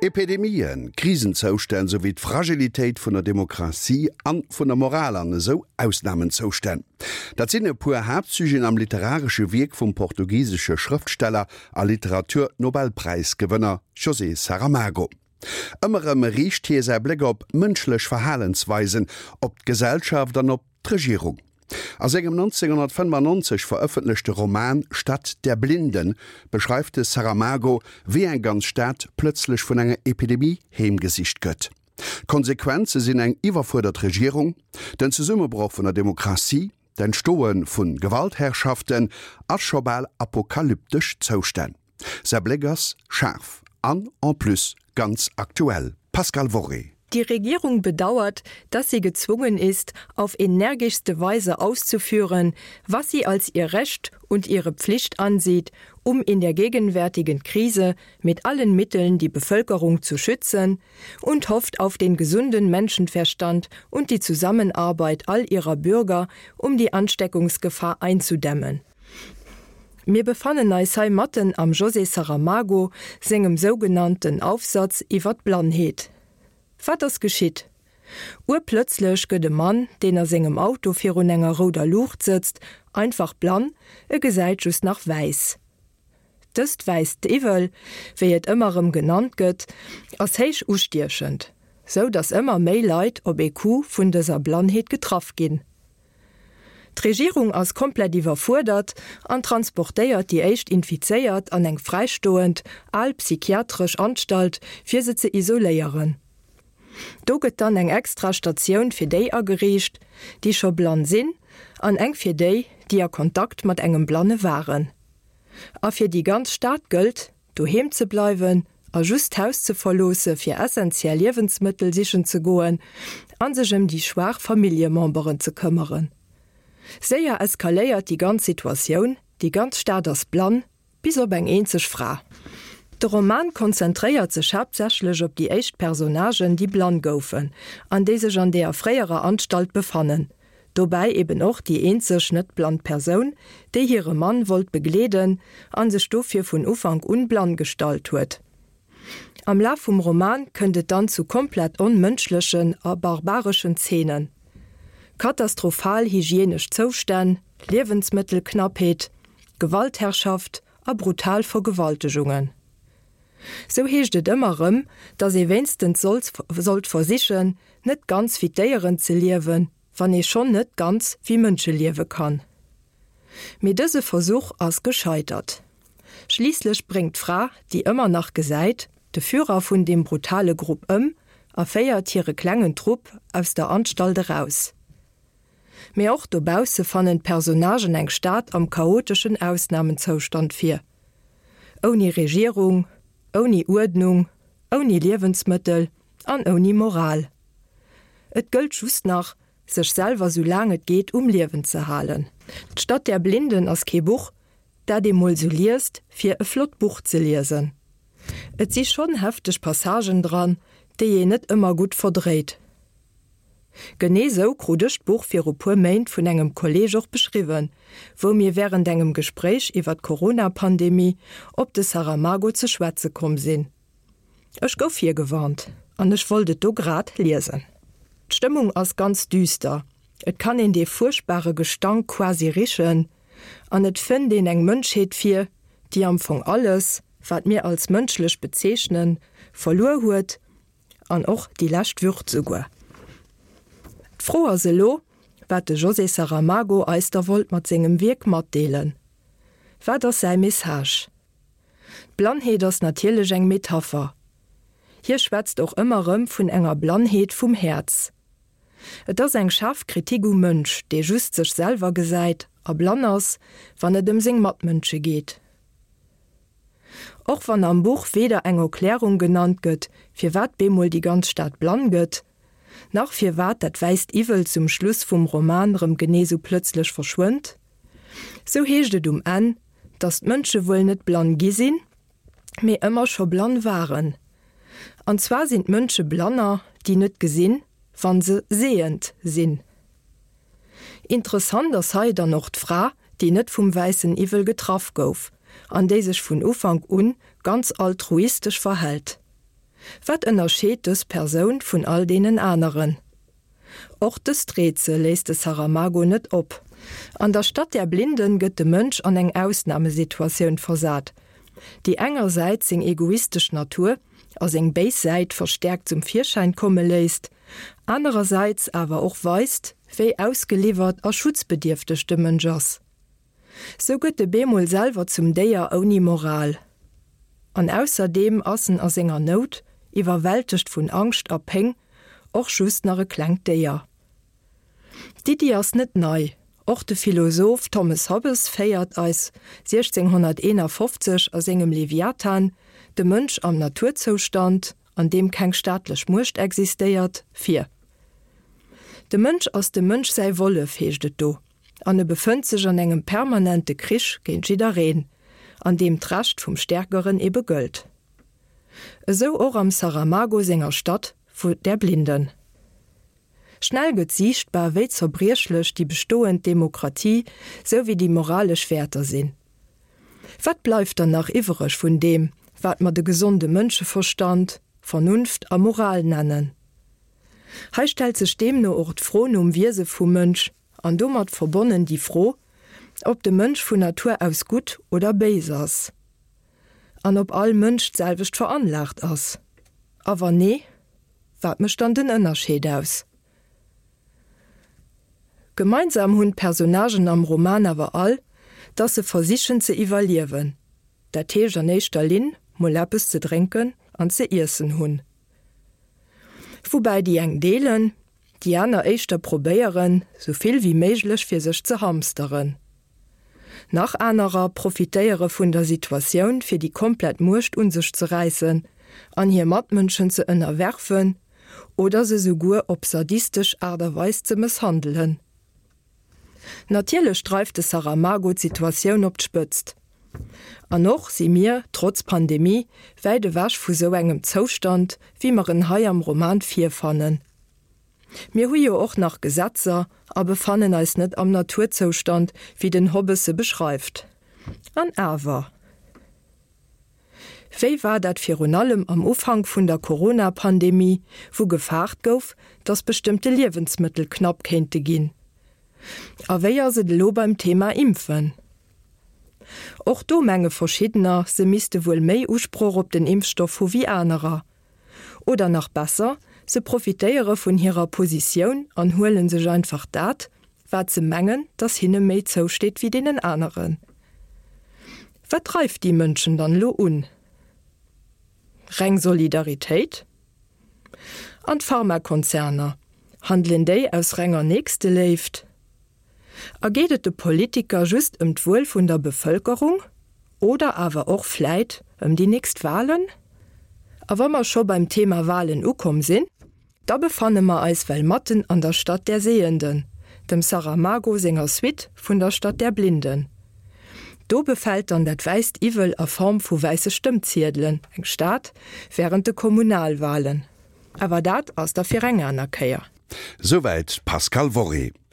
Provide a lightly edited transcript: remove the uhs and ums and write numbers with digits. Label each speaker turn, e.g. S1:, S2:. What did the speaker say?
S1: Epidemien, Krisenzoustänn souwéi d'Fragilitéit vun der Demokratie an vun der Moral an esou Ausnamenzoustänn, dat sinn e puer Haaptsujeten am literaresche Wierk vum portugisesche Schrëftsteller a Literatur-Nobelpräisgewënner José Saramago. Ëmmer erëm riicht hie säi Bléck op mënschlech Verhalensweisen, op d'Gesellschaft an op. D'Regierung. A sengem 1995 verëffentlechte Roman Stadt der Blinden beschreift de Saramago, wéi eng ganz Stad plëtzlech vun enger Epidemie heemgesicht gëtt. D'Konsequenze sinn eng iwwerfuerdert Regierung, den Zesummebroch vun der Demokratie, d'Entstoe vu Gewaltherrschaften a scho bal apokalyptesch Zoustänn. Säi Bléck ass schaarf an en plus ganz aktuell. Pascale Worré.
S2: Die Regierung bedauert, dass sie gezwungen ist, auf energischste Weise auszuführen, was sie als ihr Recht und ihre Pflicht ansieht, um in der gegenwärtigen Krise mit allen Mitteln die Bevölkerung zu schützen und hofft auf den gesunden Menschenverstand und die Zusammenarbeit all ihrer Bürger, um die Ansteckungsgefahr einzudämmen. Mir befannen eis hei matten am José Saramago sengem sougenannten Aufsatz iwwer d'Blannheet. Wat ass geschitt? Urplëtzlech gëtt e Mann, deen a sengem Auto virun enger rouder Luucht sëtzt, einfach blann, e gesäit just nach wäiss. Dëst wäisst Iwwel, wéi et ëmmer erëm genannt gëtt, ass héich ustiechend, sou datt ëmmer méi Leit op ee Coup vun dëser Blannheet getraff ginn. D'Regierung ass komplett iwwerfuerdert an transportéiert déi éischt Infizéiert an eng fräistoend, al psychiatresch Anstalt, fir se ze isoléieren. Do gëtt dann eng extra Statioun fir déi ageriicht, déi scho blann sinn, an eng fir déi, déi a Kontakt mat engem Blanne waren. A fir déi ganz Stad gëllt, Doheem ze bleiwen a just d'Haus ze verloosse fir essentiell Liewensmëttel sichen ze goen a sech ëm déi schwaach Familljememberen ze këmmeren. Séier eskaléiert déi ganz Situatioun, déi ganz Stad ass blann, bis op eng eenzeg Fra. De Roman konzentréiert sech haaptsächlech op déi éischt Personnagen, déi blann goufen an déi sech an deeër fréierer Anstalt befannen. Dobäi eben och déi eenzeg net blann Persoun, déi hire Mann wollt begleeden an sech dofir vun Ufank un blann gestallt huet. Am Laf vum Roman kënnt et dann zu komplett onmënschlechen a barbareschen Zeenen. Katastrophal hygienesch Zoustänn, Liewensmëttelknappheet, Gewaltherrschaft a brutal Vergewaltegungen. Sou heescht et ëmmer rëm, dass ee wéinstens sollt versichen, net ganz wéi d'Déieren ze liewen, wann ee schonn net ganz wéi Mënsche liewe kann. Mee dëse Versuch ass gescheitert. Schliisslech bréngt d'Fra, déi ëmmer nach gesäit, de Führer vun deem brutale Grupp ëm a féiert hire klengen Trupp aus der Anstalt eraus. Mee och dobausse fannen d'Personnagen eng Stad am chaoteschen Ausnamenzoustand vir. Ouni Regierung, ouni Uerdnung, ouni Liewensmëttel an ouni Moral. Et gëllt just nach, sech selwer sou laang et geet um Liewen ze halen. D'Stadt der Blinden ass kee Buch, dat ee mol sou liest, fir e flott Buch ze liesen. Et si schonn hefteg Passagen dran, déi een net ëmmer gutt verdréit. Genee sou krut ech d'Buch viru puer Méint vun engem Kolleeg och beschriwwen, wou mir wärend engem Gespréich iwwer d'Corona-Pandemie op de Saramago ze schwätze komm sinn. Ech gouf virgewarnt an ech wollt et do grad liesen. D'Stëmmung ass ganz düster, et kann een dee fuerchtbare Gestank quasi richen an et fënnt een eng Mënschheet vir, déi am Fong alles, wat mir als mënschlech bezeechnen, verluer huet An och déi lescht Würd souguer. D'Fro ass elo, wat de José Saramago eis da wollt mat sengem Wierk matdeelen. Wat ass säi Message? D'Blannheet ass natierlech eng Metapher. Hie schwätzt och ëmmer erëm vun enger Blannheet vum Häerz. Et ass eng schaarf Kritik um Mënsch, dee just sech selwer gesäit a blann ass, wann et ëm seng Matmënsche geet. Och wann am Buch weder eng Erklärung genannt gëtt, firwat bemol déi ganz Stad blann gëtt, nach firwat dat wäisst Iwwel zum Schluss vum Roman rëm genee sou plëtzlech verschwënnt, sou heescht et um Enn, datt d'Mënsche wuel net blann gi sinn, mee ëmmer scho blann waren. An zwar sinn d'Mënsche Blanner, déi net gesinn, wann se sehend sinn. Interessant ass hei dann och d'Fra, déi net vum wäissen Iwwel getraff gouf an déi sech vun Ufank un ganz altruistesch verhält. Wat ënnerscheet dës Persoun vun all deenen aneren? Och dëst Rätsel léisst de Saramago net op. An der Stadt der Blinden gëtt de Mënsch an eng Ausnamesituatioun versat, déi engersäits seng egoistesch Natur a seng béis Säit verstäerkt zum Virschäin komme léisst, anerersäits awer och weist, wéi ausgeliwwert a schutzbedierfteg de Mënsch ass. Sou gëtt e bemol selwer zum Déier ouni Moral. An ausserdeem ass en a senger Nout, iwwerwältegt vun Angscht a Péng, och just nach e klengt Déier. D'Iddi ass net nei, och de Philosoph Thomas Hobbes féiert eis 1651 a sengem Leviathan de Mënsch am Naturzoustand, an deem keng staatlech Muecht existéiert, vir. De Mënsch ass dem Mënsch säi Wollef, heescht et do. An e befënnt sech an engem permanente Krich géint jiddereen, an deem d'Recht vum Stärkeren ebe gëllt. Esou och am Saramago senger Stadt vu der Blinden. Schnell gëtt siichtbar, wéi zerbriechlech déi bestoend Demokratie sou wéi déi moralesch Wäerter sinn. Wat bleift dann nach iwwereg vun deem, wat mer de gesonde Mënscheverstand, Vernunft a Moral nennen? Hei stellt sech deemno och d'Fro nom Wiese vum Mënsch an domat verbonnen déi Fro, ob de Mënsch vun Natur aus gutt oder béis ass an ob all Mënsch d'selwecht veranlaagt ass. A wann nee, wat mécht dann den Ënnerscheed aus? Gemeinsam hunn d'Personnagen am Roman awer all, dass se versichen ze iwwerliewen, dat heescht an éischter Linn mol eppes ze drénken an ze iessen hunn. Woubäi déi eng deelen, déi aner éischter probéieren, sou vill wéi méiglech fir sech ze hamsteren. Nach anerer profitéiere vun der Situatioun fir déi komplett Muecht un sech ze räissen an hir Matmënschen ze ënnerwerfen oder se souguer op sadistesch Aart a Weis ze mësshandelen. Natierlech dreift de Saramago d'Situatioun op d'Spëtzt. An och si mir, trotz Pandemie, wäit ewech vu sou engem Zoustand, wéi mer en hei am Roman virfannen. Mir hu jo och nach Gesetzer a befannen eis net am Naturzoustand, wéi den Hobbes se beschreift. An awer. Wéi war dat virun allem am Ufank vun der Corona-Pandemie, wou gefaart gouf, datt bestëmmte Liewensmëttel knapp kéinte ginn? A wéi ass et elo beim Thema Impfen? Och do menge verschiddener, se misste wuel méi Usproch op den Impfstoff hu wéi anerer. Oder nach besser, se profitéiere vun hirer Positioun an huele sech einfach dat, wat se mengen, dass hinne méi zousteet wéi deenen aneren. Wat dreift déi Mënschen dann elo un? Reng Solidaritéit? An d'Pharmakonzerner, handelen déi aus renger Nächsteléift? A geet et de Politiker just ëm d'Wuel vun der Bevëlkerung oder awer och vläit ëm déi nächst Walen? A wa mer scho beim Thema Walen ukomm sinn, da befanne mer eis well matten an der Stadt der Sehenden, dem Saramago senger Suite vun der Stadt der Blinden. Do befält dann dat wäisst Iwwel a Form vu wäisse Stëmmziedelen eng Stad wärend de Kommunalwalen. Awer dat ass da fir eng aner Kéier.
S1: Souwäit d'Pascale Worré.